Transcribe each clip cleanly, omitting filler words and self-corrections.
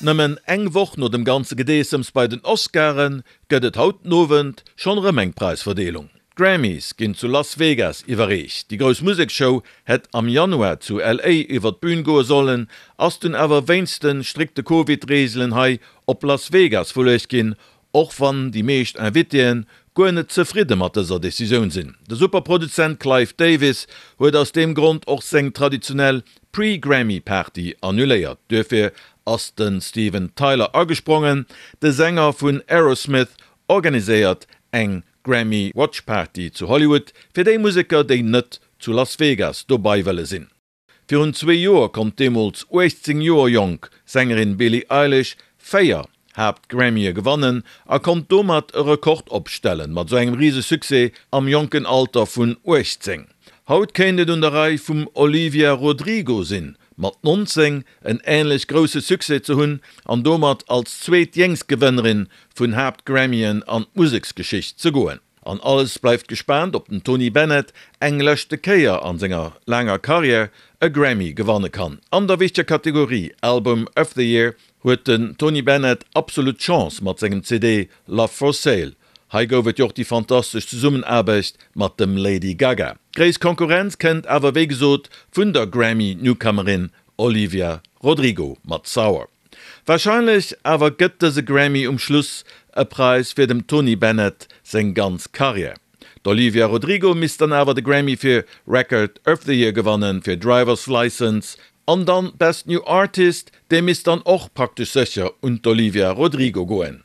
Nëmmen eng Woch no dem ganze Gedeessems bei den Oscaren gëtt et haut den Owend schonn erëm eng Präisverdeelung. D'Grammys ginn zu Las Vegas iwwerreecht. Déi grouss Museksshow hätt am Januar zu LA iwwer d'Bün goe sollen, ass dunn awer wéinst de strikte Covid-Reegelen hei op Las Vegas verluecht ginn, och wann déi meescht Invitéen guer net zefridde mat dëser Decisioun sinn. De Superproduzent Clive Davis huet aus deem Grond och seng traditionell Pre-Grammy-Party annuléiert. Duerfir ass de Steven Tyler agesprongen. De Sänger vun Aerosmith organiséiert eng Grammy Watch Party zu Hollywood fir déi Museker, déi net zu Las Vegas dobai wëlle sinn. Virun zwee Joer konnt deemools 18 Joer jonk Sängerin Billie Eilish 4 Haapt-Grammye gewannen a konnt domat e Rekord opstellen, mat sou engem rise Succès am jonken Alter vun 18. Haut kéint et un der Rei vum Olivia Rodrigo sinn, mat 19 en änlech grousse Succès ze hunn an domat als zweet jéngst Gewënnerin vun Haapt-Grammyen an d'Museksgeschicht ze goen. An alles bleift gespaant, ob den Tony Bennett eng leschte Kéier an senger laanger Karriär e Grammy gewanne kann. An der wichteger Kategorie Album of the Year huet den Tony Bennett absolut d'Chance mat sengem CD Love for Sale. Hei gouf et jo och déi fantastesch Zesummenaarbecht mat dem Lady Gaga. Gréisst Konkurrenz kënnt awer wéi gesot vun der Grammy-Newcomerin Olivia Rodrigo mat Sour. Warscheinlech awer gëtt dëse Grammy um Schluss e Präis fir dem Tony Bennett seng ganz Karriär. D'Olivia Rodrigo misst dann awer de Grammy fir Record of the Year gewannen, fir Drivers License, an dann Best New Artist, dee misst dann och praktesch sécher un d'Olivia Rodrigo goen.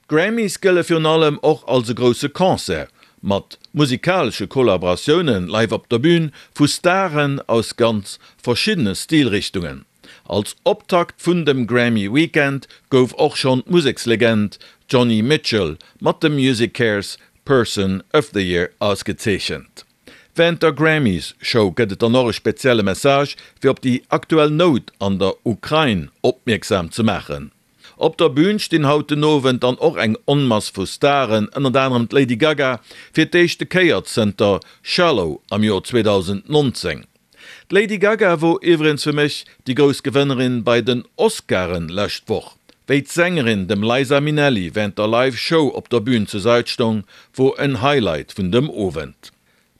D'Grammys gëlle virun allem och als e grousse Concert, mat musikalesche Kollaboratioune live op der Bün vu Staren aus ganz verschiddene Stilrichtungen. Als Optakt vun dem Grammy Weekend gouf och schonn d'Musekslegend Joni Mitchell mat dem MusiCares Person of the Year ausgezeechent. Wärend der Grammys Show gëtt et dann och e spezielle Message fir op déi aktuell Nout an der Ukrain opmierksam ze maachen. Op der Bün stinn haut den Owend dann och eng Onmass vu Staren, ënnert anerem d'Lady Gaga, fir d'éischte Kéier zënter Shallow am Joer 2019. D'Lady Gaga wor iwwregens fir mech déi grouss Gewënnerin bei den Oscaren lescht Woch. Wéi d'Sängerin dem Liza Minnelli wärend der Live Show op der Bün zur Sait stong, wor en Highlight vun dem Owend.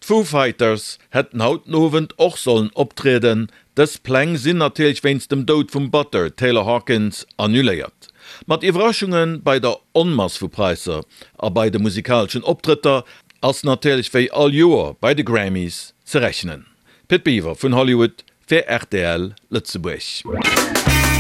D'Foo Fighters hätten haut den Owend och sollen optrieden, dës Pläng sinn natierlech wéinst dem Doud vum Batteur Taylor Hawkins annuléiert. Mat Iwwerraschunge bei der Onmass vu Praisser a bei de musikaleschen Optrëtter ass natierlech wéi all Joer bei de Grammys ze rechnen. Pit Biwer vun Hollywood fir rtl Lëtzebuerg.